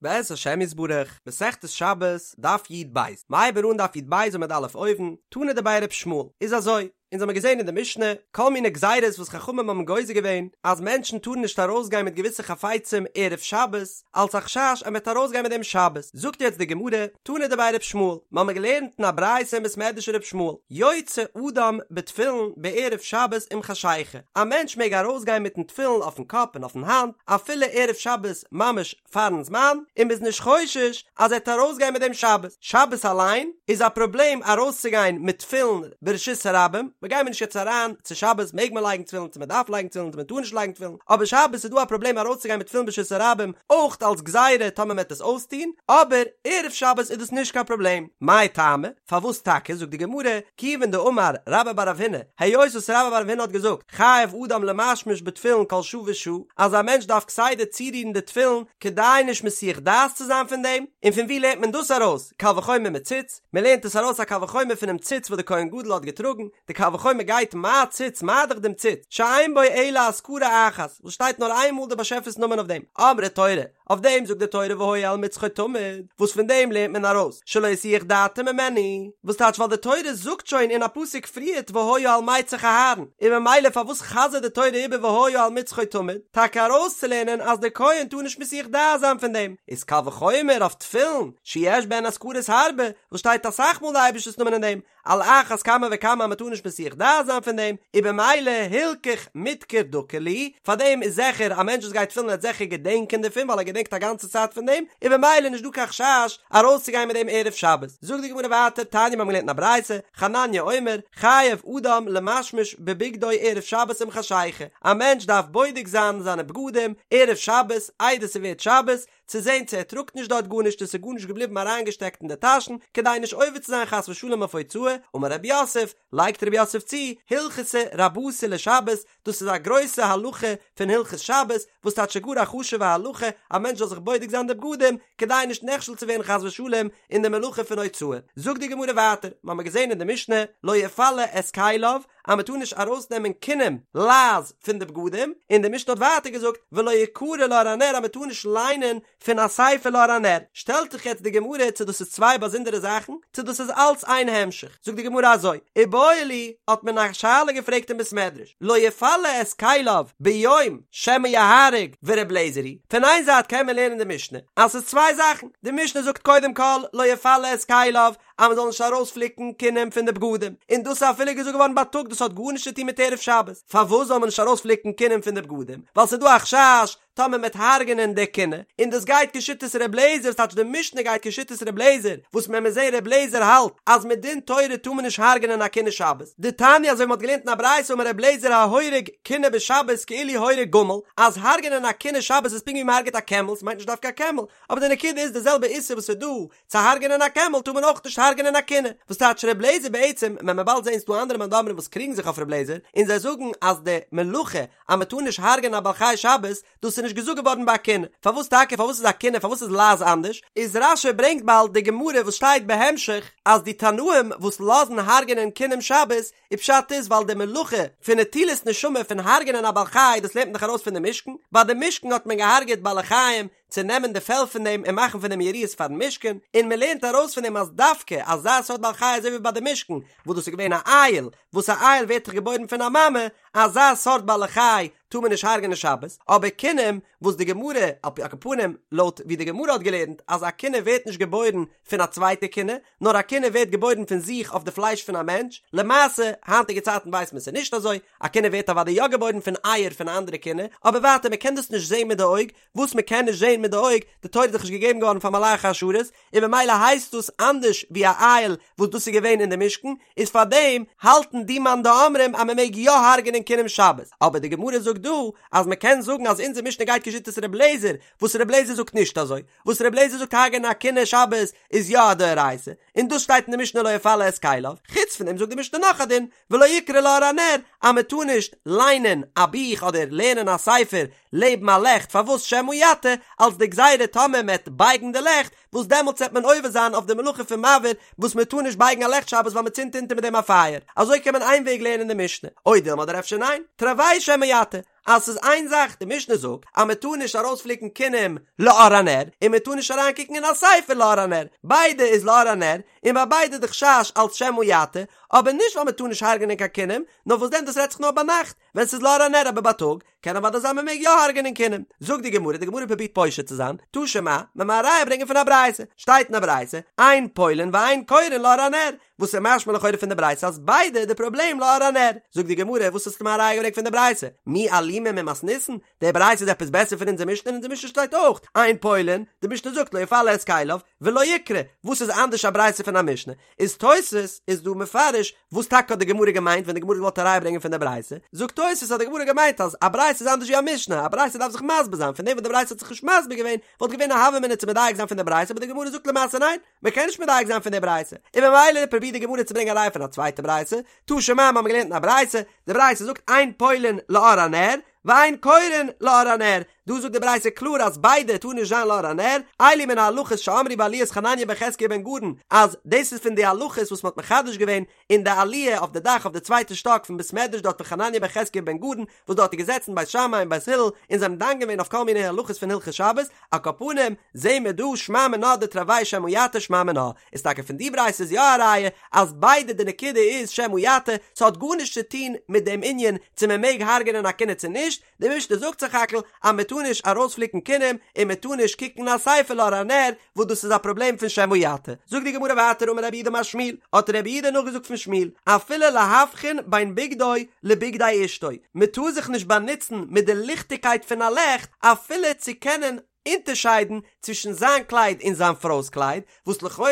בעז השם יתברך, מסכת שבת, דף י"ב, מ'הייבט אן דף י"ב עמוד א' אויבן, תנא דבי ר' ישמעאל, איז אזוי, אונז האמיר געזען אין די משנה, כל מיני גזירות וואס חכמים האבן גוזר געווען, אז מענטשן טארן נישט ארויסגיין מיט געוויסע חפצים ערב שבת, אלס א חשש אז מ'וועט ארויסגיין מיט דעם שבת, זאגט יעצט די גמרא, תנא דבי ר' ישמעאל, מ'האמיר געלערנט אין א ברייתא אין בית מדרש ר' ישמעאל, יוצא אדם בתפילין בערב שבת עם חשיכה, א מענטש מעג ארויסגיין מיטן תפילין אויפן קאפ און אויפן האנט, אפילו ערב שבת ממש פארן זמן, און מ'איז נישט חושש אז ער וועט ארויסגיין מיט דעם שבת. שבת אליין איז א פראבלעם ארויסצוגיין מיט תפילין ברשות הרבים, מ'גיימיר נישט יעצט אריין צו שבת מעג מען לייגן תפילין צו מ'דארף לייגן תפילין צו מ'טאר נישט לייגן תפילין, אבער שבת איז דא א פראבלעם ארויסצוגיין מיט תפילין ברשות הרבים אויך אלס גזירה טאמער מ'וועט עס אויסטון, אבער ערב שבת איז דאס נישט קיין פראבלעם. מאי טעמא? פארוואס טאקע? זאגט די גמרא, כיוון דאמר רבה בר רב הונא, היות וואס רבה בר רב הונא האט געזאגט, חייב אדם למשמש בתפילין כל שעה ושעה, אז א מענטש דארף כסדר צורירן די תפילין כדי נישט מסיח דעת צו זיין פון דעם, און פון וואו לערנט מען דאס ארויס? קל וחומר מציץ, מען לערנט עס ארויס א קל וחומר פונעם ציץ וואס די כהן גדול האט געטראגן, די קל וחומר גייט מה ציץ מה דאך דעם ציץ, שאין בו אלא אזכרה אחת, וואס שטייט נאר איין מאל די באשעפער'ס נאמען אויף דעם, אמרה תורה, אויף דעם זאגט די תורה והיה על מצחו תמיד, וואס פון דעם לערנט מען ארויס שלא יסיח דעתו ממנו, וואס טייטש ווייל די תורה זאגט שוין אין א פסוק פריערט והיה על מצח אהרן, און ממילא פארוואס חזר'ט די תורה איבער והיה על מצחו תמיד, טאקע ארויסצולערנען אז דער כהן טאר נישט מסיח דעת זיין פון דעם, איז קל וחומר אויף תפילין שיש בהן אזכרות הרבה, וואס שטייט אסאך מאל די אייבערשטער'ס נאמען אין דעם, על אחת כמה וכמה אז מ'טאר נישט מסיח דעת זיין פון דעם, און במילא הילכך מדכר דקר להו, פאר דעם איז זיכער א מענטש וואס גייט תפילין וועט זיכער געדענקען דערפון ווייל ער געדענקט א גאנצע צייט פון דעם, און במילא נישט דא קיין חשש ארויסצוגיין מיט דעם ערב שבת. זאגט די גמרא ווייטער, תניא מיר האבן געלערנט אין א ברייתא, חנניה אומר, חייב אדם למשמש בבגדו ערב שבת עם חשיכה, א מענטש דארף בודק זיין זיינע בגדים ערב שבת איידער ס'ווערט שבת, צו זען צו ער טראגט נישט דארט גארנישט און ס'איז גארנישט געבליבן אריינגעשטעקט אין די טאשן, כדי נישט עובר צו זיין חס ושלום אויף הוצאה, אמר רב יוסף, לייגט רב יוסף צו, הלכתא רבתי לשבת, דאס איז א גרויסע הלכה פון הלכות שבת, וואס טייטש גאר א חשוב'ע הלכה, א מענטש זאל זיך בודק זיין די בגדים, כדי נישט נכשל צו ווערן חס ושלום אין די מלאכה פון הוצאה. זאגט די גמרא ווייטער, מ'האמיר געזען אין די משנה, לא יפלה את כליו, אז מען טאר נישט ארויסנעמען כינים, לייז, פון די בגדים, און די משנה האט ווייטער געזאגט, ולא יקרא לאור הנר אז מען טאר נישט ליינען פון א ספר לאור הנר, שטעלט זיך יעצט די גמרא צו דאס איז צוויי באזונדערע זאכן, צו דאס איז אלץ איין המשך, זאגט די גמרא אזוי, איבעיא להו, האט מען א שאלה געפרעגט אין בית מדרש, לא יפלה את כליו ביום שמא יהרוג ור' אליעזר היא, פון איין זייט קען מען לערנען די משנה אז ס'איז צוויי זאכן, די משנה זאגט קודם כל לא יפלה את כליו אז מען זאל נישט ארויספליקן כינים פון די בגדים, און דאס איז אפילו געזאגט געווארן בייטאג, דאס האט גארנישט צו טון מיט ערב שבת, פארוואס זאל מען נישט ארויספליקן כינים פון די בגדים? ווייל ס'איז דא א חשש טאמער מען וועט הרג'נען די כינה, און דאס גייט כשיטת ר' לעזער, ס'טייטש די משנה גייט כשיטת ר' לעזער, וואס מען מוז זען ר' לעזער האלט אז מדין תורה טאר מען נישט הרג'נען א כינה שבת, דתניא אזוי ווי מען האט געלערנט אין א ברייתא אמר ר' לעזער ההורג כינה בשבת כאילו הורג גמל, אז הרג'נען א כינה שבת איז פונקט ווי מען הרג'עט א קעמל, ס'מיינט נישט דווקא א קעמל, אבער די נקודה איז די זעלבע איסור וואס איז דא צו הרג'נען א קעמל טאר מען אויך נישט הרג'נען א כינה, וואס טייטש ר' לעזער בעצם, ווען מען באלד זעהן ס'דא אנדערע מאן דאמרים וואס קריגן זיך אויף ר' לעזער, און זיי זאגן אז די מלאכה אז מען טאר נישט הרג'נען א בעל חי שבת, דאס איז נישט געזאגט געווארן ביי א כינה, פארוואס טאקע פארוואס איז א כינה פארוואס איז לייז אנדערש, איז רש"י ברענגט באלד די גמרא וואס שטייט בהמשך אז די תנאים וואס לאזן הרג'נען כינים שבת, און פשט איז ווייל די מלאכה פון נטילת נשמה פון הרג'נען א בעל חי דאס לערנט מען דאך ארויס פון די משכן, ביי די משכן האט מען געהארגעט בעלי חיים צו נעמען די פעל פון דעם און מאכן פון דעם יריעות פארן משכן, און מען לערנט ארויס פון דעם אז דווקא אזא סארט בעל חי אזוי ווי ביי די משכן וואס דאס איז געווען א איל, וואס א איל ווערט דאך געבוירן פון א מאמע, אזא סארט בעלי חי טאר מען נישט הרג'נען שבת, אבער כינים וואס די גמרא, על פי על כל פנים לויט ווי די גמרא האט געלערנט אז א כינה ווערט נישט געבוירן פון א צווייטע כינה, נאר א כינה ווערט געבוירן פון זיך אויף די פלייש פון א מענטש, למעשה היינטיגע צייטן ווייסט מען ס'איז נישט אזוי, א כינה ווערט אוודאי יא געבוירן פון אייער פון א אנדערע כינה, אבער ווייטער מען קען דאס נישט זען מיט די אויג, וואס מען קען נישט זען מיט די אויג, די תורה איז דאך נישט געגעבן געווארן פאר מלאכי השרת, און ממילא הייסט דאס אנדערש ווי א איל וואס דאס איז געווען אין די משכן, איז פאר דעם האלטן די מאן דאמרים אז מען מעג יא הרג'נען כינים שבת, אבער די גמרא זאגט דא אז מען קען זאגן אז אונזער משנה גייט כשיטת ר' לעזער, וואס ר' לעזער זאגט נישט אזוי, וואס ר' לעזער זאגט הרג'נען א כינה שבת איז יא א דאורייתא, און דאס שטייט אין די משנה לא יפלה את כליו, חוץ פון דעם זאגט די משנה נאך א דין, ולא יקרא לאור הנר, אז מען טאר נישט ליינען א בוך אדער לערנען א ספר לעבן א לעכט, פארוואס שמא יטה, אלס די גזירה טאמער מען וועט בייגן די לעכט, וואס דעמאלטס וועט מען עובר זיין אויף די מלאכה פון מבעיר, וואס מען טאר נישט בייגן א לעכט שבת ווייל מען צינדט אונטער מיט דעם א פייער, אזוי קען מען איין וועג לערנען די משנה, או דילמא אדער אפשר ניין, תרוייהו שמא יטה. אז ס'איז איין זאך, די משנה זאגט אז מען טאר נישט ארויספליקן כינים לאור הנר, און מען טאר נישט אריינקוקן אין א ספר לאור הנר, ביידע איז לאור הנר, און ביי ביידע איז די חשש אלץ שמא יטה, אבער נישט ווייל מען טאר נישט הרג'נען קיין כינים, נאר וואס דען דאס רעדט זיך נאר ביינאכט ווען ס'איז לאור הנר אבער בייטאג קען אוודאי זיין מען מעג יא הרג'נען כינים. זאגט די גמרא, די גמרא פרובירט פושט צו זיין, תא שמע, מען מען א ראיה ברענגען פון א ברייתא, שטייט אין א ברייתא, אין פולין ואין קורין לאור הנר, וואס איז משמע לכאורה פון די ברייתא אז ביידע די פראבלעם לאור הנר. זאגט די גמרא, וואס האסטו מיר א ראיה געברענגט פון די ברייתא? מי אלימא ממתניתין? די ברייתא איז עפעס בעסער פון אונזער משנה? אין אונזער משנה שטייט אויך, אין פולין, די משנה זאגט לא יפלה את כליו, ולא יקרא, וואס איז אנדערש א ברייתא פון א משנה? איז תוס' איז דא מפרש וואס טאקע האט די גמרא געמיינט ווען די גמרא האט געוואלט א ראיה ברענגען פון די ברייתא, זאגט תוס' האט די גמרא געמיינט אז א ברייתא איז אנדערש ווי א משנה, א ברייתא דארף זיך מסביר זיין, פון דעם וואס די ברייתא האט זיך נישט מסביר געווען וואלט געווען א הוה אמינא צו מדייק זיין פון די ברייתא, אבער די גמרא זאגט למעשה ניין, מען קען נישט מדייק זיין פון די ברייתא, און ממילא פרובירט די גמרא צו ברענגען א ראיה פון א צווייטע ברייתא, תא שמע מיר האבן געלערנט אין א ברייתא, די ברייתא זאגט אין פולין לאור הנר, ואין קורין לאור הנר, דא זאגט די ברייתא קלאר אז ביידע טאר נישט זיין לאור הנר, אלו מן ההלכות שאמרו בעליית חנניה בן חזקיה בן גרון, אז דאס איז פון די הלכות וואס מען האט מחדש געווען אין די עליה אויף די דאך אויף די צווייטע שטאק פון בית מדרש דארט פון חנניה בן חזקיה בן גרון, וואס דארט איז געזעצן בית שמאי און בית הלל און זיי האבן דן געווען אויף כל מיני הלכות פון הלכות שבת, על כל פנים זעהן מיר דא שמע מינה דתרוייהו שמא יטה שמע מינה, איז טאקע פון די ברייתא איז יא א ראיה אז ביידע די נקודה איז שמא יטה, ס'האט גארנישט צו טון מיט דעם ענין צו מען מעג הרג'נען א כינה צו נישט, די משנה זאגט סך הכל אז מען טאר נישט ארויספליקן כינים און מען טאר נישט קוקן אין א ספר לאור הנר וואס דאס איז א פראבלעם פון שמא יטה. זאגט די גמרא ווייטער אמר רב יהודה אמר שמואל, האט רב יהודה נאכגעזאגט פון שמואל, אפילו להבחין בין בגדו לבגדי אשתו, מען טאר זיך נישט באנוצן מיט די ליכטיגקייט פון א לעכט אפילו צו קענען אונטערשיידן צווישן זיין קלייד און זיין פרוי'ס קלייד, וואס לכאורה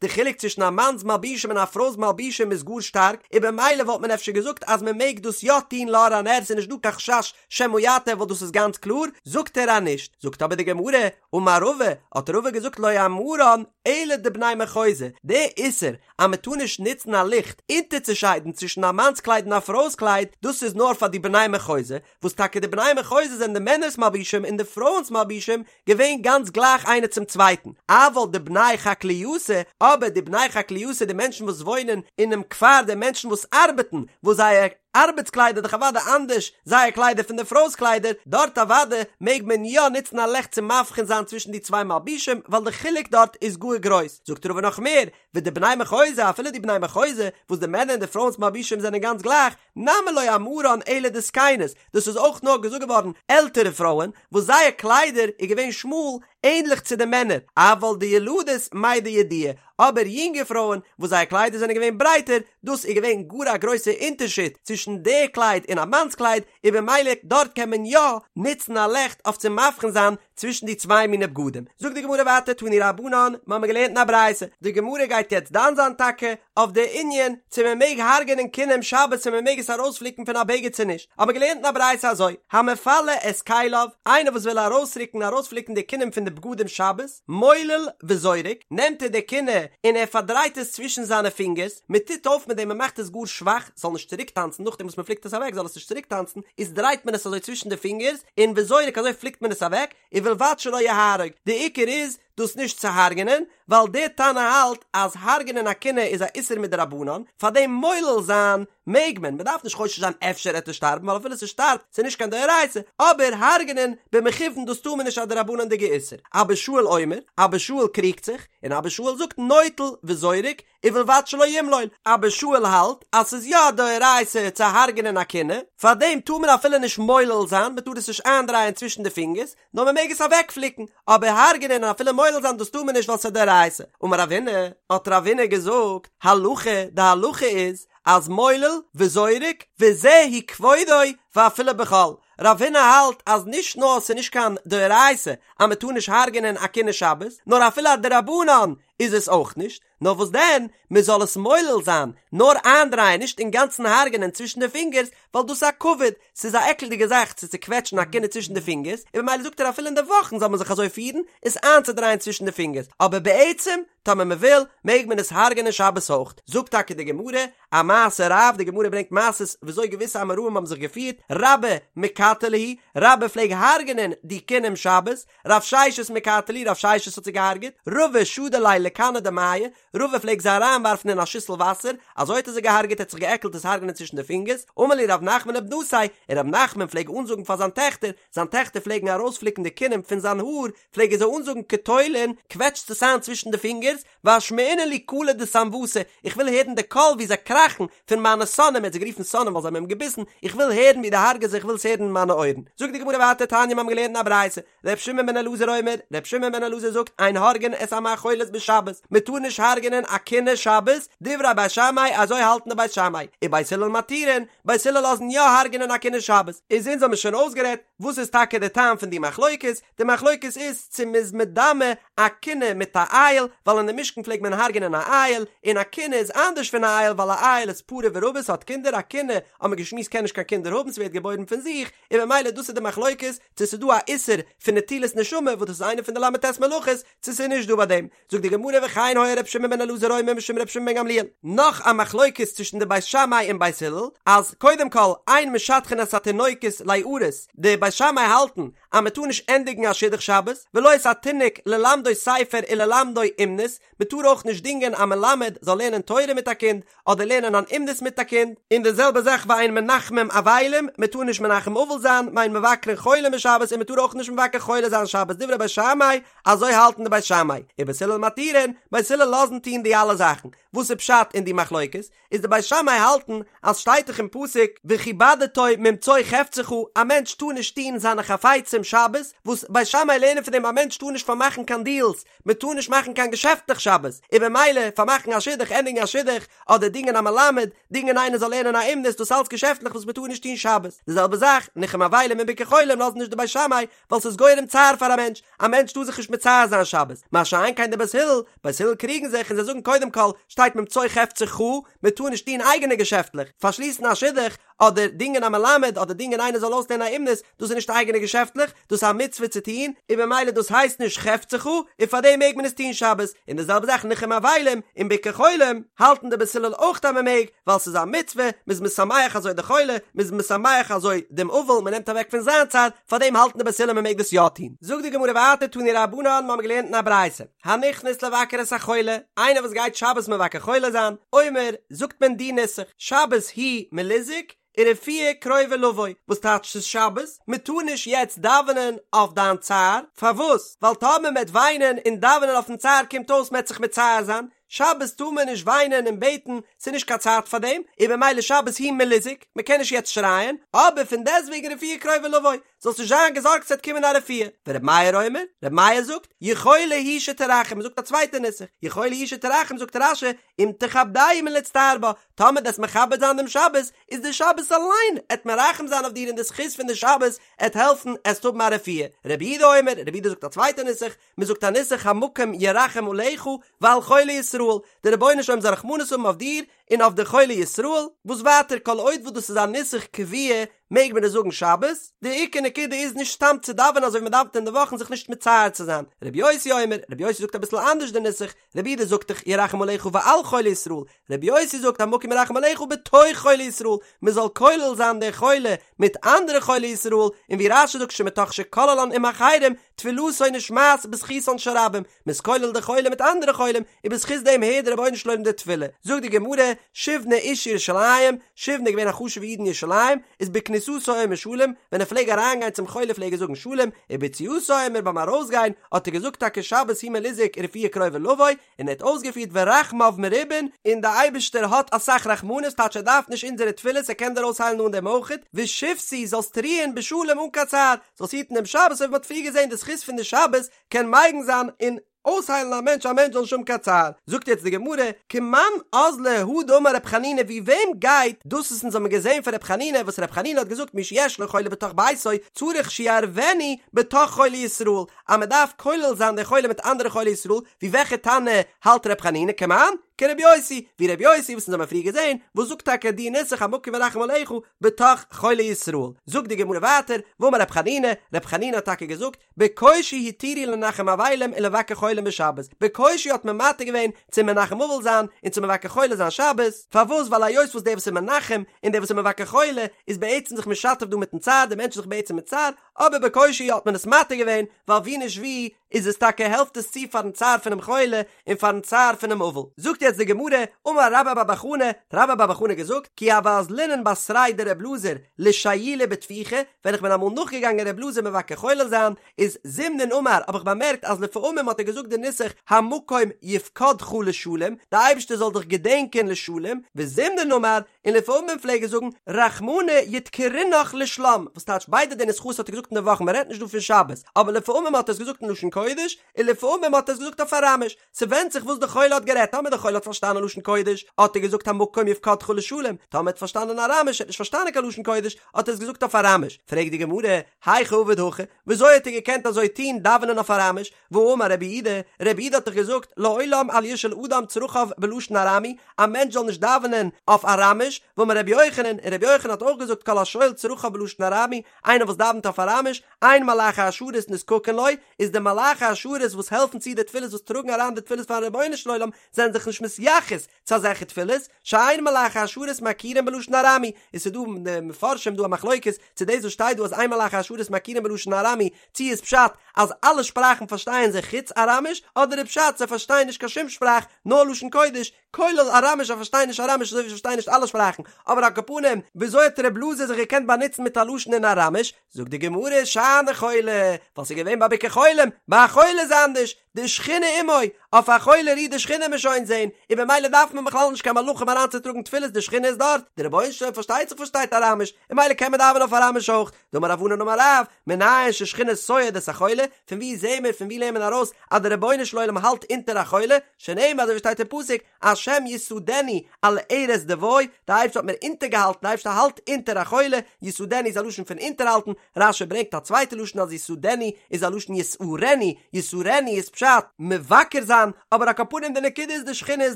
די חילוק צווישן א מאנ'ס מלבישים און א פרוי'ס מלבישים איז גאר שטארק, און במילא וואלט מען אפשר געזאגט אז מען מעג דאס יא טון לאור הנר ס'איז נישט דא קיין חשש שמא יטה ווייל דאס איז גאנץ קלאר, זאגט ער אז נישט, זאגט אבער די גמרא, אמר רבא, האט רבא געזאגט לא אמרן אלא דבני מחוזא, די איסור אז מען טאר נישט נוצן א ליכט אונטערצושיידן צווישן א מאנ'ס קלייד און א פרוי'ס קלייד, דאס איז נאר פאר די בני מחוזא, וואס טאקע די בני מחוזא זענען די מענער'ס מלבישים און די פרויען'ס מלבישים געווען גאנץ גלייך איינער צום צווייטן, אבל דבני חקליתא, אבער די בני חקליתא די מענטשן וואס וואוינען אינעם כפר די מענטשן וואס ארבעטן, וואס זייער ארבעטס קליידער דאך אוודאי אנדערש זייער קליידער פון די פרוי'ס קליידער, דארט אוודאי מעג מען יא נוצן א לעכט צו מבחין זיין צווישן די צוויי מלבישים ווייל די חילוק דארט איז גאר גרויס, זאגט רבא נאך מער, ודבני מחוזא אפילו די בני מחוזא וואס די מענער און די פרויען'ס מלבישים זענען גאנץ גלייך, נמי לא אמרן אלא דזקנות, דאס איז אויך נאר געזאגט געווארן עלטערע פרויען וואס זייער קליידער איז געווען שמאל ענדליך צו די מענער, אבל דילדות מידע ידיעי, אבער יונגע פרויען וואס זייער קליידער זענען געווען ברייטער, דאס איז געווען גאר א גרויסע אונטערשיד צווישן די קלייד און א מאנ'ס קלייד, און במילא דארט קען מען יא נוצן א לעכט אויף צו מבחין זיין צווישן די צוויי מיני בגדים. זאגט די גמרא ווייטער תנו רבנן, מיר האבן געלערנט אין א ברייתא, די גמרא גייט יעצט דן זיין טאקע אויף די ענין צו מען מעג הרג'ענען כינים שבת צו מען מעג עס ארויספליקן פון א בגד צו נישט, האבן מיר געלערנט אין א ברייתא אזוי, המפלה את כליו, איינער וואס וויל ארויסרוקן ארויספליקן די כינים פון די בגדים שבת, מולל וזורק, נעמט ער די כינה און ער פארדרייט עס צווישן זיינע פינגערס, מען טוט אויף מיט דעם מען מאכט עס גאר שוואך, ס'זאל נישט צוריק טאנצן נאכדעם וואס מען פליקט עס אוועק זאל עס נישט צוריק טאנצן, איז דרייט מען עס אזוי צווישן די פינגערס, און וזורק אזוי פליקט מען עס אוועק, ובלבד שלא יהרוג, די עיקר איז דאס נישט צו הרג'נען, ווייל דער תנא האלט אז הרג'נען א כינה איז א איסור מדרבנן, פארדעם מולל זיין מעג מען, מען דארף נישט חושש זיין אפשר עט ער שטארבן ווייל אפילו ס'שטארבט ס'איז נישט קיין דאורייתא, אבער הרג'נען במכוון דאס טאר מען נישט א דרבנן'דיגע איסור. אבא שאול אומר, אבא שאול קריגט זיך, און אבא שאול זאגט נוטל וזורק, ובלבד שלא ימלול, אבא שאול האלט אז ס'איז יא א דאורייתא צו הרג'נען א כינה, פארדעם טאר מען אפילו נישט מולל זיין, מען טאר עס נישט איינדרייען צווישן די פינגערס, נאר מען מעג עס אוועקפליקן, אבער הרג'נען און אפילו מולל זיין דאס טאר מען נישט ווייל ס'איז א דאורייתא. אמר רב הונא, האט רב הונא געזאגט, הלכה, די הלכה איז, אז מולל וזורק, וזהו כבודו ואפילו בחול, רב הונא האלט אז נישט נאר ס'איז נישט קיין דאורייתא אז מען טאר נישט הרג'נען א כינה שבת, נאר אפילו א דרבנן איז עס אויך נישט, נאר וואס דען, מען זאל עס מולל זיין, נאר איינדרייען, נישט אינגאנצן הרג'נען צווישן די פינגערס, ווייל דאס איז א כבוד, ס'איז א עקלדיגע זאך צו צוקוועטשן א כינה צווישן די פינגערס, און במילא זאגט ער אפילו אין די וואכן זאל מען זיך אזוי פירן, עס איינצודרייען צווישן די פינגערס, אבער בעצם, טאמער מען וויל, מעג מען עס הרג'נען שבת אויך. זאגט טאקע די גמרא, א מעשה רב, די גמרא ברענגט מעשות וויאזוי געוויסע אמוראים האבן זיך געפירט, רבה מקטע להו, רבה פלעג הרג'נען די כינים שבת, רב ששת מקטע להו, רב ששת האט זיי געהארגעט, רבא שדי להו. לכנא דמיא, רבא פלעג זיי אריינווארפן אין א שיסל וואסער, אזוי האט ער זיי געהארגעט ער האט זיך געעקלט עס הרג'נען צווישן די פינגערס, אמר להו רב נחמן לבנתיה, און רב נחמן פלעג אנזאגן פאר זיין טעכטער, זיין טעכטער פלעגן ארויספליקן די כינים פון זיין האר, פלעג ער זיי אנזאגן קטולון, קוועטשטס עס איין צווישן די פינגערס, ואשמעינן לי קלא דסנוותי, איך וויל הערן די קול ווי זיי קראכן פון מיינע שונאים, ער האט זיי גערופן שונאים ווייל זיי האבן אים געביסן, איך וויל הערן ווי דו הרג'עסט זיי, איך וויל עס הערן אין מיינע אויערן. זאגט די גמרא ווייטער תניא מיר האבן געלערנט אין א ברייתא, ר' שמעון בן אלעזר אומר, ר' שמעון בן אלעזר זאגט, אין הורגין את המאכולת בשבת, מען טאר נישט הרג'נען א כינה שבת, דברי בית שמאי, אזוי האלטן די בית שמאי, ובית הלל מתירין, בית הלל לאזן יא הרג'נען א כינה שבת, איז אונז האבן שוין אויסגערעדט וואס איז טאקע די טעם פון די מחלוקת, די מחלוקת איז צו מ'איז מדמה א כינה מיט א איל, ווייל אין די משכן פלעגט מען הרג'נען א איל, און א כינה איז אנדערש פון א איל ווייל א איל איז פרה ורבה ס'האט קינדער, א כינה האט מען געשמועסט קען נישט קיין קינדער האבן ס'ווערט געבוירן פון זיך, און ממילא דאס איז די מחלוקת צו ס'איז דא א איסור פון נטילת נשמה וואס דאס איז איינע פון די ל"ט מלאכות, צו ס'איז נישט דא ביי דעם. זאגט די גמרא וכן היה ר' שמעון בן אלעזר אומר משום ר' שמעון בן גמליאל. נאך א מחלוקת צווישן די בית שמאי און בית הלל, אז קודם כל אין משדכין את התינוקות ליארס, די בית שמאי האלטן אז מען טאר נישט ענדיגן א שידוך שבת, ולא את התינוק ללמדו ספר וללמדו אומנות, מען טאר אויך נישט דינגען א מלמד זאל לערנען תורה מיט א קינד, אדער לערנען אן אומנות מיט א קינד, און די זעלבע זאך ואין מנחמים אבלים, מען טאר נישט מנחם אבל זיין, ואין מבקרין חולים בשבת און מען טאר אויך נישט מבקר חולה זיין שבת, דברי בית שמאי, אזוי האלטן די בית שמאי, ובית הלל מתירין, בית הלל לאזן טון די אלע זאכן, וואס איז פשט אין די מחלוקת? איז די בית שמאי האלטן אז שטייט דאך אין פסוק וכבדתו ממצוא חפצך א מענטש טאר נישט טון זיינע חפצים שבת, וואס בית שמאי לערנען פון דעם א מענטש טאר נישט פארמאכן קיין דיעלס, מען טאר נישט מאכן קיין געשעפטלעך שבת, און במילא פארמאכן א שידוך, ענדיגן א שידוך, אדער דינגען א מלמד, דינגען איינער זאל לערנען א אומנות, דאס אלץ געשעפטלעך וואס מען טאר נישט טון שבת. די זעלבע זאך, ניחום אבלים און ביקור חולים לאזן נישט די בית שמאי, ווייל ס'איז גורם צער פאר א מענטש, א מענטש טאר זיך נישט מצער זיין שבת, מה שאין כן די בית הלל, בית הלל קריגן זיך און זיי זאגן קודם כל, שטייט ממצוא חפצך, מען טאר נישט טון אייגענע געשעפטלעך, פארשליסן א שידוך, אדער דינגען א מלמד, אדער דינגען איינער זאל אויסלערנען א אומנות, דאס איז נישט אייגענע געשעפטלעך, דאס איז א מצוה צו טון, און במילא דאס הייסט נישט חפצך, און פאר דעם מעג מען עס טון שבת, און די זעלבע זאך ניחום אבלים און ביקור חולים, האלטן די בית הלל אויך אז מען מעג, ווייל ס'איז א מצוה, מען איז משמח אזוי די חולה, מען איז משמח אזוי דעם אבל, מען נעמט אוועק פון זיין צער, פאר דעם האלטן די בית הלל מען מעג דאס יא טון. זאגט די גמרא ווייטער תנו רבנן, מיר האבן געלערנט אין א ברייתא, הנכנס לבקר את החולה, איינער וואס גייט שבת מבקר חולה זיין, אומר, זאגט מען די נוסח, שבת הוא מליזהק, ורפואה קרובה לבוא, וואס טייטש ס'איז שבת? מען טאר נישט יעצט דאווענען אויף דיין צער, פארוואס? ווייל טאמער מען וועט וויינען און דאווענען אויפן צער קומט אויס מען וועט זיך מצער זיין, שבת טאר מען נישט וויינען און בעטן, ס'איז נישט קיין צייט פאר דעם, און במילא שבת הוא מליזהק, מען קען נישט יעצט שרייען, אבער פון דעסטוועגן רפואה קרובה לבוא, זאלסט נישט זיין געזארגט ס'וועט קומען א רפואה. ור' מאיר אומר, ר' מאיר זאגט, יכולה היא שתרחם, מ'זאגט א צווייטע נוסח, יכולה היא שתרחם זאגט רש"י, אם תכבדהו מלהצטער בה, טאמער דו'סט מכבד זיין דעם שבת, איז די שבת אליין עט מרחם זיין אויף דיר און די זכות פון די שבת עט העלפן עסט האבן א רפואה. רבי יהודה אומר, רבי יהודה זאגט א צווייטע נוסח, מ'זאגט א נוסח המקום ירחם עליך ועל חולי ישראל, דער רבונו של עולם זאל רחמנות האבן אויף דיר און אויף די חולי ישראל, וואס ווייטער כל עוד וואס דאס איז א נוסח קבוע מעג מען עס זאגן שבת, די עיקר נקודה איז נישט סתם צו דאווענען אזוי ווי מען דאווענט אין די וואכן זיך נישט מצער צו זיין, רבי יוסי אומר, רבי יוסי זאגט אביסל אנדערש די נוסח, רבי יהודה זאגט דאך ירחם עליך ועל חולי ישראל, רבי יוסי זאגט המקום ירחם עליך בתוך חולי ישראל, מען זאל כולל זיין די חולה מיט אנדערע חולי ישראל, און ווי רש"י זאגט שמתוך שכוללן עם אחרים, תפילתו נשמעת בזכותן של רבים, מען איז כולל די חולה מיט אנדערע חולים, און בזכות דעם הערט דער רבונו של עולם די תפילה. זאגט די גמרא, שיבנא איש ירושלים, שיבנא איז געווען א חשוב'ע איד אין ירושלים, איז בכניסתו אומר שלום, ווען ער פלעג אריינגיין צום חולה פלעג ער זאגן שלום, וביציאתו אומר ביים ארויסגיין האט ער געזאגט טאקע שבת הוא מליזהק ורפואה קרובה לבוא, און ער האט אויסגעפירט ורחמיו מרובין, און דער אייבערשטער האט אסאך רחמנות, טייטש ער דארף נישט אונזערע תפילות ער קען דיר אויסהיילן אן דעם אויכעט, ושבתי זאלסט רוען בשלום אן קיין צער, זאלסט היטן דעם שבת אזוי ווי מען האט פריער געזען די זכות פון די שבת קען מגין זיין און אויסהיילן א מענטש א מענטש זאל נישט האבן קיין צער, זאגט יעצט די גמרא, כמאן אזלא הא דאמר רב חנינא ווי וועם גייט דאס וואס אונז האבן געזען פון רב חנינא וואס רב חנינא האט געזאגט מי שיש לו חולה בתוך ביתו צריך שיערבנו בתוך חולי ישראל אז מען דארף כולל זיין די חולה מיט אנדערע חולי ישראל, ווי וועלכע תנא האלט ר' חנינא כמאן? כר' יוסי, ווי ר' יוסי וואס אונז האבן פריער געזען, וואס זאגט טאקע די נוסח המקום ירחם עליך בתוך חולי ישראל. זאגט די גמרא ווייטער, ואמר ר' חנינא, ר' חנינא האט טאקע געזאגט, בקושי התירו לנחם אבלים ולבקר חולים בשבת, בקושי האט מען מתיר געווען צו מנחם אבל זיין און צו מבקר חולה זיין שבת, פארוואס ווייל היות וואס דער וואס איז מנחם און דער וואס איז מבקר חולה איז בעצם זיך משתף דא מיטן צער, דער מענטש איז זיך בעצם מצער, אבער בקושי האט מען עס מתיר געווען, ווייל ווי נישט ווי. איז עס טאקע העלפט עס צו פארן צער פונעם חולה און פארן צער פונעם אבל. זאגט יעצט די גמרא, אמר רבה בר בר חנה, האט רבה בר בר חנה געזאגט, כי הוה אזלינן בתריה דר' אלעזר לשיולי בטפיחא, ווען איך בין אמאל נאכגעגאנגען ר' אלעזר מבקר חולה זיין, איז זימנין אמר האב איך באמערקט אז לפעמים האט ער געזאגט די נוסח המקום יפקדך לשלום, די אייבערשטער זאל דיך געדענקען לשלום, וזימנין אמר, און לפעמים פלעג ער זאגן רחמנא ידכרינך לשלם, וואס טייטש ביידע די נוסחאות האט ער געזאגט אין די וואך, מען רעדט נישט דא פון שבת, אבער לפעמים האט ער עס געזאגט אין לשון קודש, און לפעמים האט ער עס געזאגט אויף אראמיש, ס'ווענדט זיך וואס די חולה האט גערעדט, טאמער די חולה האט פארשטאנען לשון קודש, האט ער געזאגט המקום יפקדך לשלום, טאמער ער האט פארשטאנען אראמיש, ער האט נישט פארשטאנען קיין לשון קודש, האט ער עס געזאגט אויף אראמיש, פרעגט די גמרא, היכי עביד הכי, וויאזוי האט ער געקענט אזוי טון דאווענען אויף אראמיש, והאמר רבי יהודה, רבי יהודה האט דאך געזאגט, לעולם אל ישאל אדם צרכיו בלשון ארמי, א מענטש זאל נישט דאווענען אויף אראמיש, ואמר רבי יוחנן, און רבי יוחנן האט אויך געזאגט כל השואל צרכיו בלשון ארמי, איינער וואס דאווענט אויף אראמיש, אין מלאכי השרת נזקקין לו, איז די מלאכי השרת וואס העלפן צו די תפילות וואס טראגן אריין די תפילות פארן רבונו של עולם זענען זיך נישט מתייחס צו אזעלכע תפילות, שאין מלאכי השרת מכירין בלשון ארמי, און ס'איז דא אין די מפרשים דא א מחלוקת צו דאס וואס שטייט דא אז אין מלאכי השרת מכירין בלשון ארמי צו איז פשט אז אלע שפראכן פארשטייען זיי חוץ אראמיש אדער איז פשט זיי פארשטייען נישט קיין שום שפראך נאר לשון קודש כולל אראמיש זיי פארשטייען נישט אראמיש אזוי ווי זיי פארשטייען נישט אלע שפראכן, אבער על כל פנים וויאזוי האט ר' אלעזר זיך געקענט באנוצן מיט א לשון אין אראמיש? זאגט די גמרא שאני חולה, ווייל ס'איז געווען ביי ביקור חולים, ביי א חולה איז אנדערש, דשכינה עמו, אויף א חולה רוהט די שכינה מ'עט שוין זעהן, און במילא דארף מען בכלל נישט קיין מלאכים אריינצוטראגן תפילות די שכינה איז דארט, די רבונו של עולם פארשטייט זיך פארשטייט אראמיש, און במילא קען מען דאווענען אויף אראמיש אויך, דאמר רב ענן אמר רב, מנין ששכינה סועד את החולה, פון וואו זעהן מיר פון וואו לערנט מען ארויס אז די רבונו של עולם האלט אונטער א חולה, שנאמר אזוי ווי שטייט אין פסוק, השם יסעדנו על ערש דוי, די אייבערשטער האט מיר אונטערגעהאלטן, די אייבערשטער האלט אונטער א חולה, יסעדנו איז א לשון פון אונטערהאלטן, רש"י ברענגט א צווייטע לשון אז יסעדנו איז א לשון יסערנו, יסערנו איז פשט, מבקר זיין, אבער על כל פנים די נקודה איז די שכינה איז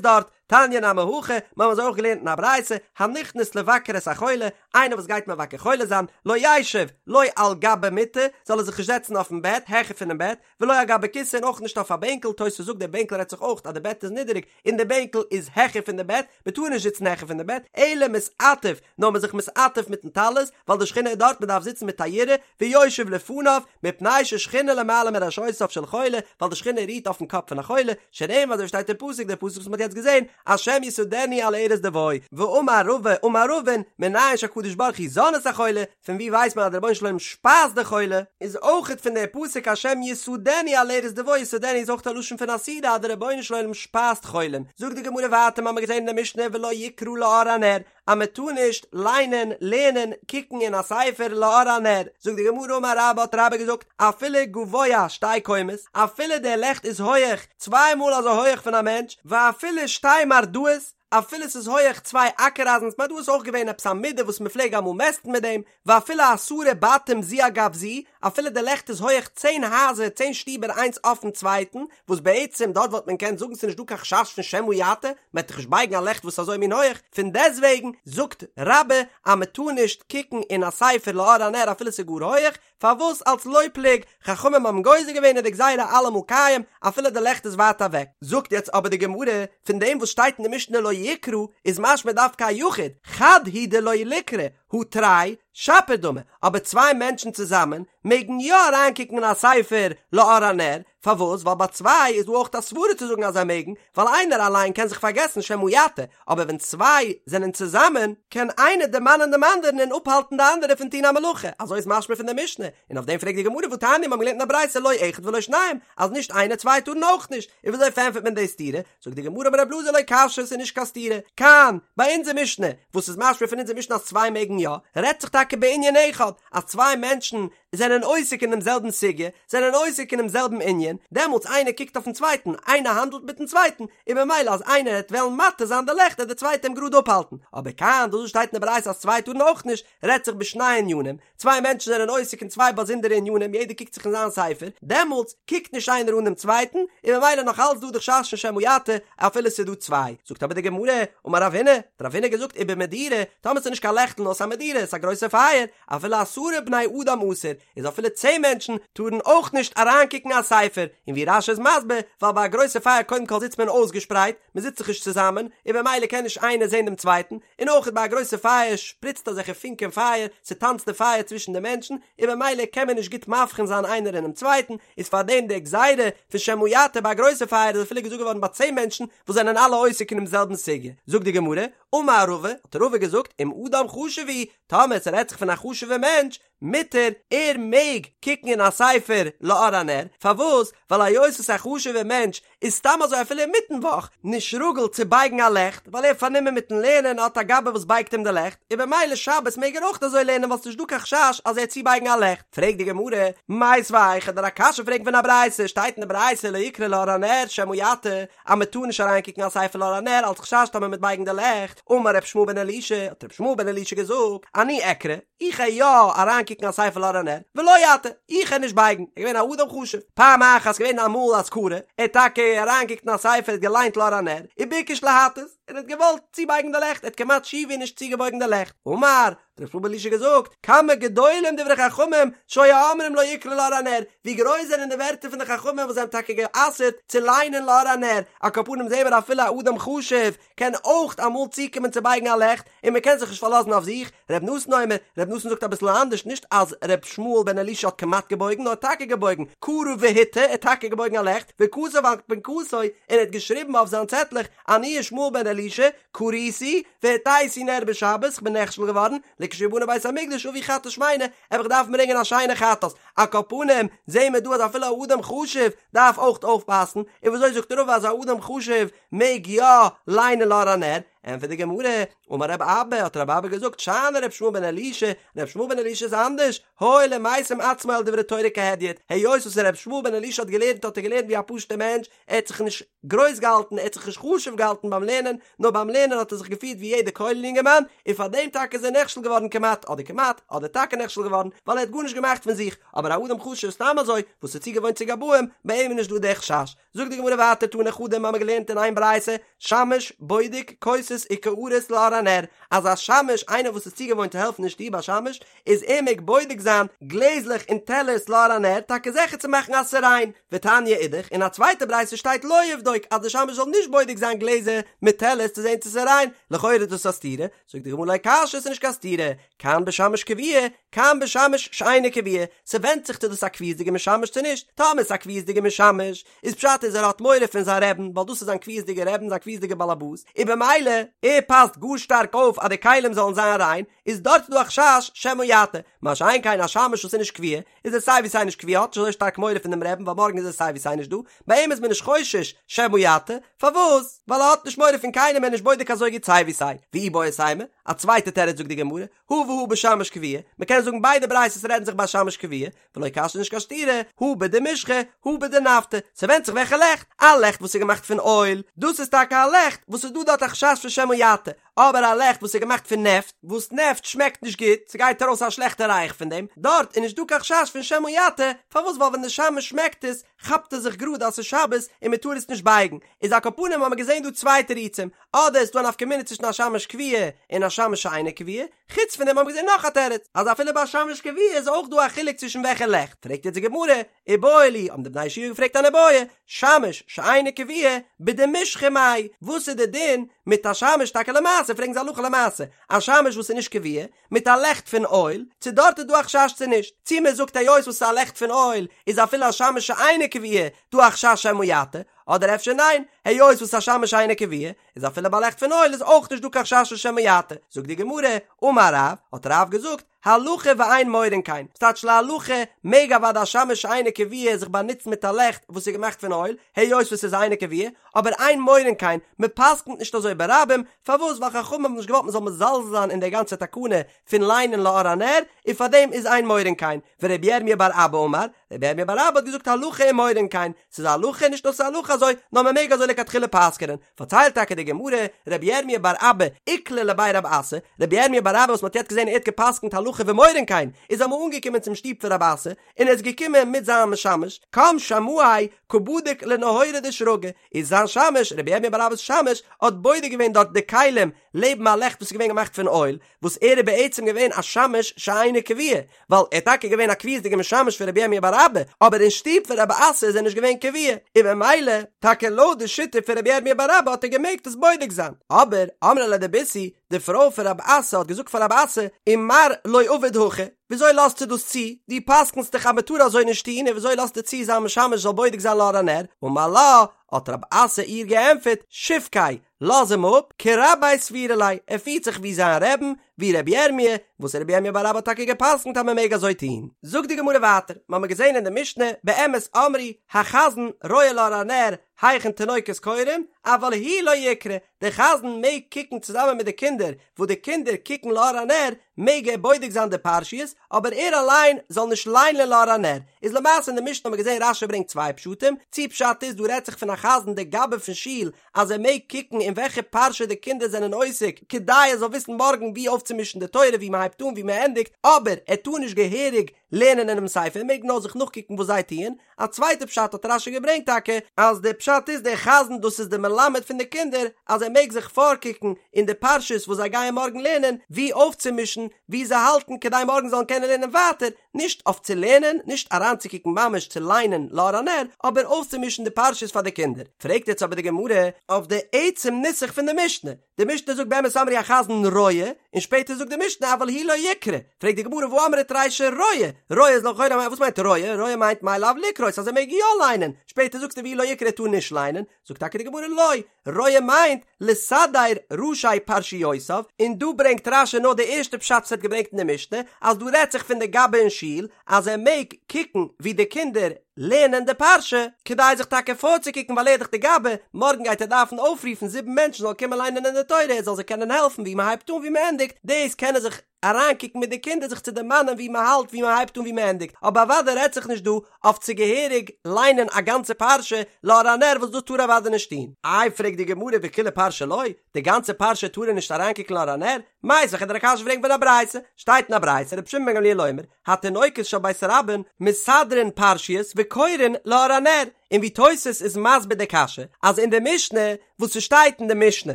דארט, תניא נמי הכי, מיר האבן אזוי אויך געלערנט אין א ברייתא, הנכנס לבקר את החולה, איינער וואס גייט מבקר חולה זיין, לא ישב, לא על גבי מיטה, זאל ער זיך נישט זעצן אויפן בעט, העכער פונעם בעט, ולא על גבי כסא און אויך נישט אויף א בענקל, תוספות זאגט דער בענקל רעדט זיך אויך אז די בעט איז נידעריג און די בענקל איז העכער פון די בעט, מען טאר נישט זיצן העכער פון די בעט, אלא מתעטף, נאר מען זיך מתעטף מיטן טלית, ווייל די שכינה איז דארט, מען דארף זיצן מיט א יראה, ויושב לפניו, מפני ששכינה למעלה מראשותיו של חולה, ווייל די שכינה רוהט אויפן קאפ פון א חולה, שנאמר אזוי ווי שטייט אין פסוק, דער פסוק וואס מען האט יעצט געזען, השם יסעדנו על ערש דוי, ואמר רבא אמר רבין, מנין שהקדוש ברוך הוא זן את החולה, פון ווי ווייסט מען אז דער רבונו של עולם שפייזט די חולה? איז אויכעט פון דער פסוק השם יסעדנו על ערש דוי יסעדנו איז אויך א לשון פון א סעודה אז דער רבונו של עולם שפייזט חולים. זאגט די גמרא ווייטער מ'האמיר געזען אין די משנה ולא יקרא לאור הנר אז מען טאר נישט ליינען, לערנען, קוקן אין א ספר לאור הנר. זאגט די גמרא אמר רבה האט רבה געזאגט אפילו גבוה שתי קומות אפילו דער לעכט איז הויעך צוויי מאל אזוי הויעך פון א מענטש ואפילו שתי מרדעות אפילו ס'איז הויעך צוויי אקער אייזנס מרדעות איז אויך געווען עפעס א מידה וואס מ'פלעג אמאל מעסטן מיט דעם, ואפילו עשרה בתים זו על גב זו, אפילו די לעכט איז הויעך צען הייזער צען שטיבער איינס אויפן צווייטן, וואס בעצם דארט וואלט מען געקענט זאגן ס'איז נישט דא קיין חשש פון שמא יטה, מ'עט דאך נישט בייגן א לעכט וואס איז אזוי מין הויעך, פון דעסטוועגן זאגט רבה אז מ'טאר נישט קוקן אין א ספר לאור הנר אפילו ס'איז גאר הויעך, פארוואס אלס לא פלוג, חכמים האבן גוזר געווען איז די גזירה אלעמאל קיים אפילו די לעכט איז ווייט אוועק. זאגט יעצט אבער די גמרא, פון דעם וואס שטייט אין די משנה לא יקרא איז משמע דווקא א יחיד, חד הוא דלא ליקרי, הא תרי שפיר דמי, אבער צוויי מענטשן צוזאמען מעגן יא אריינקוקן אין א ספר לאור הנר, פארוואס? ווייל ביי צוויי איז דא אויך א סברה צו זאגן אז זיי מעגן, ווייל איינער אליין קען זיך פארגעסן שמא יטה, אבער ווען צוויי זענען צוזאמען, קען איינער דערמאנען דעם אנדערן און אפהאלטן די אנדערע פון טון א מלאכה, אזוי איז משמע פון די משנה, און אויף דעם פרעגט די גמרא והתניא מיר האבן געלערנט אין א ברייתא לא אחד ולא שניים, אז נישט איינער צוויי טארן אויך נישט, און וויאזוי פארענטפערט מען די סתירה? זאגט די גמרא אמר רב אלעזר לא קשיא ס'איז נישט קיין סתירה, כאן, ביי אונזער משנה, וואס איז משמע פון אונזער משנה אז צוויי מעגן יא, רעדט זיך טאקע בענין אחד, אז צוויי מענטשן זענען עוסק אינעם זעלבן סוגיא, זענען עוסק אינעם זעלבן ענין, דעמאלטס איינער קוקט אויפן צווייטן, איינער האנדלט מיטן צווייטן, און במילא אז איינער העט וועלן מטה זיין די לעכט העט דער צווייטער אים גראד אפהאלטן. אבער כאן, דאס וואס שטייט אין די ברייתא אז צוויי טארן אויך נישט, רעדט זיך בשני ענינים, צוויי מענטשן זענען עוסק אין צוויי באזונדערע ענינים, יעדער קוקט זיך אין זיין ספר, דעמאלטס קוקט נישט איינער אן דעם צווייטן, און במילא נאך אלץ דא די חשש פון שמא יטה, אפילו ס'איז דא צוויי. זאגט אבער די גמרא, אמר רב הונא, האט רב הונא געזאגט ובמדורה, טאמער ס'איז נישט קיין לעכטל נאר ס'איז א מדורה. מדורה, ס'איז א גרויסע פייער, אפילו עשרה בני אדם אסור, איז אפילו צען מענטשן טארן אויך נישט אריינקוקן א ספר, און ווי רש"י איז מסביר, ווייל ביי א גרויסע פייער קודם כל זיצט מען אויסגעשפרייט, מען זיצט זיך נישט צוזאמען, און במילא קען נישט איינער זען דעם צווייטן, און אויך ביי א גרויסע פייער שפריצט אזעלכע פונקען פייער, ס'טאנצט די פייער צווישן די מענטשן, און במילא קען מען נישט גוט מבחין זיין איינער אינעם צווייטן, איז פארדעם די גזירה פון שמא יטה ביי א גרויסע פייער איז אפילו געזאגט געווארן ביי צען מענטשן וואס זענען אלע עוסק אינעם זעלבן סוגיא. זאגט די גמרא, אמר רבא, האט רבא געזאגט, אם אדם חשוב הוא, טאמער ס'רעדט זיך פון א חשוב'ער מענטש, מותר, ער מעג קוקן אין א ספר לאור הנר, פארוואס? ווייל היות וואס א חשוב'ער מענטש איז סתם אזוי אפילו אינמיטן וואך נישט רגיל צו בייגן א לעכט, ווייל ער איז פארנומען מיטן לערנען און האט א גבאי וואס בייגט אים די לעכט, און במילא שבת מעג ער אויך אזוי לערנען ווייל ס'נישט דא קיין חשש אז ער וועט צובייגן א לעכט. פרעגט די גמרא, מיתיבי כ'וועל דיר א קשיא פרעגן פון א ברייתא, שטייט אין די ברייתא לא יקרא לאור הנר שמא יטה, אז מען טאר נישט אריינקוקן א ספר לאור הנר אלץ חשש טאמער מ'וועט בייגן די לעכט, אמר ר' ישמעאל בן אלישע, האט ר' ישמעאל בן אלישע געזאגט, אני אקרא, איך גיי יא אריינקוקן א ספר לאור הנר, ולא אטה, איך גיי נישט בייגן, ער איז געווען א אדם חשוב, פעם אחת געווען אמאל אז קרא, ער האט טאקע אריינגעקוקט אין א ספר ער האט געליינט לאור הנר, וביקש להטות, און ער האט געוואלט צובייגן די לעכט, ער האט כמעט שיעור ווי נישט צוגעבויגן די לעכט, אמר, האט ר' ישמעאל בן אלישע געזאגט, כמה גדולים דברי חכמים שהיו אומרים לא יקרא לאור הנר, ווי גרויס זענען די ווערטער פון די חכמים וואס זיי האבן טאקע גע'אסר'ט צו ליינען לאור הנר, על כל פנים זעהן מיר אפילו א אדם חשוב קען אויך אמאל צוקומען צו בייגן א לעכט, און מען קען זיך נישט פארלאזן אויף זיך, ר' נתן אומר, ר' נתן זאגט אביסל אנדערש, נישט אז ר' ישמעאל בן אלישע האט כמעט געבויגן, נאר טאקע געבויגן, קרא והטה, ער האט טאקע געבויגן א לעכט, וכתב על פנקסו, און ער האט געשריבן אויף זיין צעטלעך, אני ישמעאל בן אלישע, קריתי, והטיתי נר בשבת, כ'בין נכשל געווארן, לכשיבנה בית המקדש אביא חטאת שמינה, וועל איך דארפן ברענגען א שיינע חטאת, על כל פנים, זעהן מיר דא אז אפילו א אדם חשוב דארף אויך אויפפאסן, און וויאזוי זאגט רבא אז א אדם חשוב מעג יא ליינען לאור הנר? ענטפערט די גמרא, אמר רב אבא, האט רב אבא געזאגט, שאני ר' ישמעאל בן אלישע, ר' ישמעאל בן אלישע איז אנדערש, הואיל ומשים עצמו על דברי תורה כהדיוט, היות וואס ר' ישמעאל בן אלישע האט געלערנט האט ער געלערנט ווי א פשוט'ער מענטש, ער האט זיך נישט גרויס געהאלטן, ער האט זיך נישט חשוב געהאלטן ביים לערנען, נאר ביים לערנען האט ער זיך געפירט ווי יעדער כולל יונגערמאן, און פאר דעם טאקע איז ער נכשל געווארן כמעט, אדער כמעט, אדער טאקע נכשל געווארן, ווייל ער האט גארנישט געמאכט פון זיך, אבער א אדם חשוב סתם אזוי, וואס איז צוגעוואוינט צו גבאים, ביי אים איז נישט דא דער חשש. זאגט די גמרא ווייטער תני חדא מ'האמיר געלערנט אין איין ברייתא, שמש בודק כוסות וקערות לאור הנר, אז א שמש איינער וואס איז צוגעוואוינט צו העלפן אין שטוב א שמש, איז ער מעג בודק זיין גלעזלעך און טעלערס לאור הנר טאקע זיכער צו מאכן אז ס'איז ריין, ותניא אידך, אין א צווייטע ברייתא שטייט לא יבדוק אז די שמש זאל נישט בודק זיין גלעזער מיט טעלערס צו זען צו ס'איז ריין, לכאורה איז דאס א סתירה, זאגט די גמרא לא קשיא ס'איז נישט קיין סתירה, כאן בשמש קבוע, כאן בשמש שאינו קבוע, ס'ווענדט זיך צו דאס א קביעות'דיגע משמש צו נישט, טאמער ס'איז א קביעות'דיגע משמש, איז פשט איז ער האט מורא פון זיין רעבן ווייל דאס איז זיין קביעות'דיגע רעבן זיין קביעות'דיגע באלעבאס, און במילא ער פאסט גאר שטארק אויף אז די כלים זאלן זיין ריין, איז דארט דא א חשש שמא יטה, מה שאין כן א שמש וואס איז נישט קבוע, איז ער סיי ווי סיי נישט קבוע האט נישט אזוי שטארק מורא פון דעם רעבן ווייל מארגן איז ער סיי ווי סיי נישט דא, ביי אים איז מען נישט חושש שמא יטה, פארוואס? ווייל ער האט נישט מורא פון קיינעם ער איז נישט בודק אזוי גוט סיי ווי סיי, ואיבעית אימא, א צווייטע תירוץ זאגט די גמרא, הא והא בשמש קבוע, מען קען זאגן ביידע ברייתות רעדן זיך ביי שמש קבוע, ולא קשיא נישט קיין סתירה, הא בדמשחא, הא בדנפטא, ס'ווענדט זיך וועלכע לעכט, א לעכט וואס איז געמאכט פון אויל, דאס איז טאקע א לעכט וואס איז דא דארט א חשש פון שמא יטה, אבער א לעכט וואס איז געמאכט פון נעפט, וואס נעפט שמעקט נישט גוט, ס'גייט ארויס א שלעכטע ריח פון דעם, דארט איז נישט דא קיין חשש פון שמא יטה, פארוואס ווייל ווען די שמש שמעקט עס, כאפט ער זיך גראד אז ס'איז שבת און מען טאר עס נישט בייגן, איז על כל פנים האמער געזען דא צוויי תירוצים, אדער איז דא א נפקא מינה צווישן א שמש קבוע און א שמש שאינו קבוע, חוץ פון דעם האמער געזען נאך א תירוץ, אז אפילו ביי א שמש קבוע איז אויך דא א חילוק צווישן וועלכע לעכט, פרעגט יעצט די גמרא, איבעיא להו, האבן די בני ישיבה געפרעגט אן איבעיא, שמש שאינו קבוע, בדמשחא מאי, וואס איז די דין מיט א שמש טאקע למעשה, פרעגן זיי הלכה למעשה, א שמש וואס איז נישט קבוע, מיט א לעכט פון אויל, צו דארט איז דא א חשש צו נישט, צו מען זאגט היות וואס ס'איז א לעכט פון אויל איז אפילו א שמש שאינו קבוע דא א חשש שמא יטה, אדער אפשר ניין, היות וואס א שמש שאינו קבוע איז אפילו ביי לעכט פון אויל איז אויך נישט דא קיין חשש פון שמא יטה, זאגט די גמרא, אמר רב, האט רב געזאגט, הלכה ואין מורין כן, ס'טייטש להלכה מעג אוודאי א שמש שאינו קבוע זיך באנוצן מיט א לעכט וואס איז געמאכט פון אויל, היות וואס ס'איז אינו קבוע, אבער אין מורין כן, מען פסק'נט נישט אזוי ברבים, פארוואס? ווייל חכמים האבן נישט געוואלט מען זאל מזלזל זיין אין דער גאנצער תקנה פון ליינען לאור הנר, און פארדעם איז אין מורין כן, ורבי ירמיה בר אבא אמר, רבי ירמיה בר אבא האט געזאגט הלכה ומורין כן, ס'איז א הלכה, נישט נאר ס'איז א הלכה אזוי, נאר מען מעג אזוי לכתחילה פסק'נען, פארציילט טאקע די גמרא, רבי ירמיה בר אבא איקלע לבי רב אסי, רבי ירמיה בר אבא וואס מען האט יעצט געזען ער האט געפסק'נט הלכה. הלכה ומורין כן, איז אמאל אנגעקומען צום שטוב פון רב אסי, און ער איז געקומען מיט זיין משמש, קם שמעיה קא בדיק לנהורא דשרגא, איז זיין שמש, רבי ירמיה בר אבא'ס שמש, האט בודק געווען דארט די כלים לעבן א לעכט וואס איז געווען געמאכט פון אויל, וואס ער איז בעצם געווען א שמש שאינו קבוע, ווייל ער איז טאקע געווען א קביעות'דיגע משמש פון רבי ירמיה בר אבא, אבער אין שטוב פון רב אסי איז ער נישט געווען קבוע, און במילא, טאקע לויט די שיטה פון רבי ירמיה בר אבא האט ער געמעגט עס בודק זיין. אבער, אמרה ליה דביתהו, די פרוי פון רב אסי האט געזאגט פאר רב אסי, ומר לא עביד הכי, וויאזוי לאזטו דאס צו? דו פסק'נסט דאך אז מען טאר אזוי נישט טון, און וויאזוי לאזטו צו זיין משמש זאל בודק זיין לאור הנר? אמר לה, האט רב אסי איר געענטפערט, שבקיה, לאז אים אפ, כרביה סבירא ליה, ער פירט זיך ווי זיין רעבן, ווי רבי ירמי', וואס רבי ירמי' בר אבא האט טאקע גע'פסק'נט אז מען מעג אזוי טון. זאגט די גמרא ווייטער, מ'האמיר געזען אין די משנה, באמת אמרו, החזן רואה לאור הנר היכן תינוקות קורין, אבל הוא לא יקרא, דער חזן מעג קוקן צוזאמען מיט די קינדער, וואס די קינדער קוקן לאור הנר, מעג ער בודק זיין די פרשיות, אבער ער אליין זאל נישט ליינען לאור הנר. איז למעשה אין די משנה האט מען געזען רש"י ברענגט צוויי פשטים, צי פשט איז דא רעדט זיך פון א חזן די גבאי פון שול אז ער מעג קוקן אין וועלכע פרשה די קינדער זענען עוסק כדי ער זאל וויסן מארגן ווי אויפצומישן די תורה ווי מען הייבט אן ווי מען ענדיגט, אבער ער טאר נישט געהעריג לערנען אינעם ספר ער מעג נאר זיך נאכקוקן וואס זיי טוען, א צווייטע פשט האט רש"י געברענגט טאקע אז די פשט איז דער חזן דאס איז די מלמד פון די קינדער אז ער מעג זיך פארקוקן אין די פרשות וואס זיי גייען מארגן לערנען ווי אויפצומישן ווי זיי האלטן כדי מארגן זאלן קענען לערנען ווייטער, נישט אויף צו לערנען, נישט אריינצוקוקן ממש צו ליינען לאור הנר, אבער אויפצומישן די פרשות פאר די קינדער. פרעגט יעצט אבער די גמרא אויף די עצם נוסח פון די משנה, די משנה זאגט באמת אמרו החזן רואה, און שפעטער זאגט די משנה אבל הוא לא יקרא, פרעגט די גמרא והא אמרת רישא רואה, רואה איז לכאורה וואס מיינט רואה? רואה מיינט מאי לאו לקרות אז ער מעג יא ליינען, שפעטער זאגסטו והוא לא יקרא ער טאר נישט ליינען, זאגט טאקע די גמרא לא, רואה מיינט לסדר ראשי פרשיותיו, און דא ברענגט רש"י נאר די ערשטע פשט וואס ער האט געברענגט אין די משנה, אז דא רעדט זיך פון די גבאי אין שול, אז ער מעג קוקן ווי די קינדער לערנען די פרשה, כדי זיך טאקע פארצוקוקן ווייל ער איז דאך די גבאי, מארגן גייט ער דארפן אויפרופן זיבן מענטשן זאלן קומען ליינען אין די תורה ער זאל זיי קענען העלפן ווי מען הייבט אן ווי מען ענדיגט, דאס קען ער זיך אריינקוקן מיט די קינדער זיך צו דערמאנען ווי מען האלט ווי מען הייבט אן ווי מען ענדיגט, אבער אוודאי רעדט זיך נישט דא אויף צו געהעריג ליינען א גאנצע פרשה לאור הנר וואס דאס טאר ער אוודאי נישט טון. איי פרעגט די גמרא וכולה פרשה לא, די גאנצע פרשה טאר ער נישט אריינקוקן לאור הנר? מיתיבי כ'וועל דיר א קשיא פרעגן פון א ברייתא, שטייט אין א ברייתא רבי שמעון בן גמליאל אומר, התינוקות של בית רבן מסדרין פרשיות וקורין לאור הנר, און ווי תוס' איז מסביר די קשיא אז אין די משנה וואס ס'שטייט אין די משנה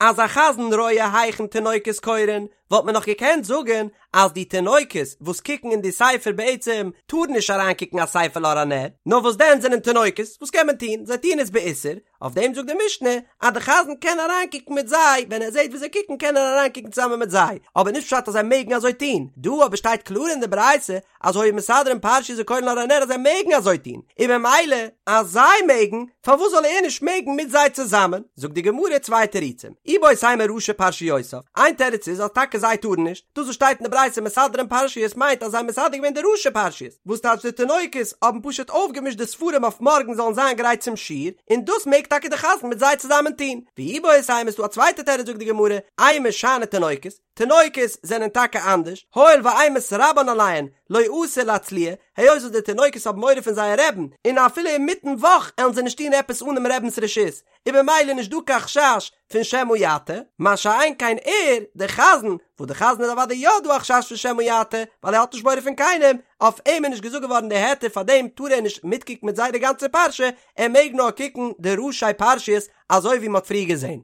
אז החזן רואה היכן תינוקות קורין וואלט מען נאך געקענט זאגן אז די תינוקות וואס קוקן אין די ספר בעצם טארן נישט אריינקוקן א ספר לאור הנר, נאר וואס דען זענען תינוקות, וואס קען מען טון, זיי טוען עס באיסור, אויף דעם זאגט די משנה אז די חזן קען אריינקוקן מיט זיי, ווען ער זעט ווי זיי קוקן קען ער אריינקוקן צוזאמען מיט זיי, אבער נישט פשט אז זיי מעגן אזוי טון, דא אבער שטייט קלאר אין די ברייתא אז היו מסדרין פרשיות וקורין לאור הנר אז זיי מעגן אזוי טון, און ממילא אז זיי מעגן, פארוואס זאל ער נישט מעגן מיט זיי צוזאמען? זאגט די גמרא צוויי תירוצים, איבעית אימא ראשי פרשיותיו, איין תירוץ איז אז טאקע זיי טארן נישט, דאס וואס שטייט אין די ברייתא מסדרין פרשיות מיינט אז זיי האבן מסדר געווען די ראשי פרשיות, וואס טייטש די תינוקות האבן פשוט אויפגעמישט די ספרים אויף מארגן זאלן זיין גרייט צום שיעור, און דאס מעג טאקע די חזן מיט זיי צוזאמען טון. ואיבעית אימא איז דא א צווייטע תירוץ זאגט די גמרא, אימא שאני תינוקות, תינוקות זענען טאקע אנדערש, הואיל ואימת רבן עליהן, לא אתו לאצלויי, היות וואס די תינוקות האבן מורא פון זייער רעבן, און אפילו אינמיטן וואך עלן זיי נישט טון עפעס אן דעם רעבנ'ס רשות, איז במילא נישט דא קיין חשש פון שמא יטה, מה שאין כן ער, דער חזן, וואס דער חזן איז אוודאי יא דא א חשש פון שמא יטה, ווייל ער האט נישט מורא פון קיינעם, אויף אים איז נישט געזאגט געווארן די היתר פאר דעם טאר ער נישט מיטקוקן מיט זיי די גאנצע פרשה, ער מעג נאר קוקן די ראשי פרשיות אזוי ווי מען האט פריער געזען.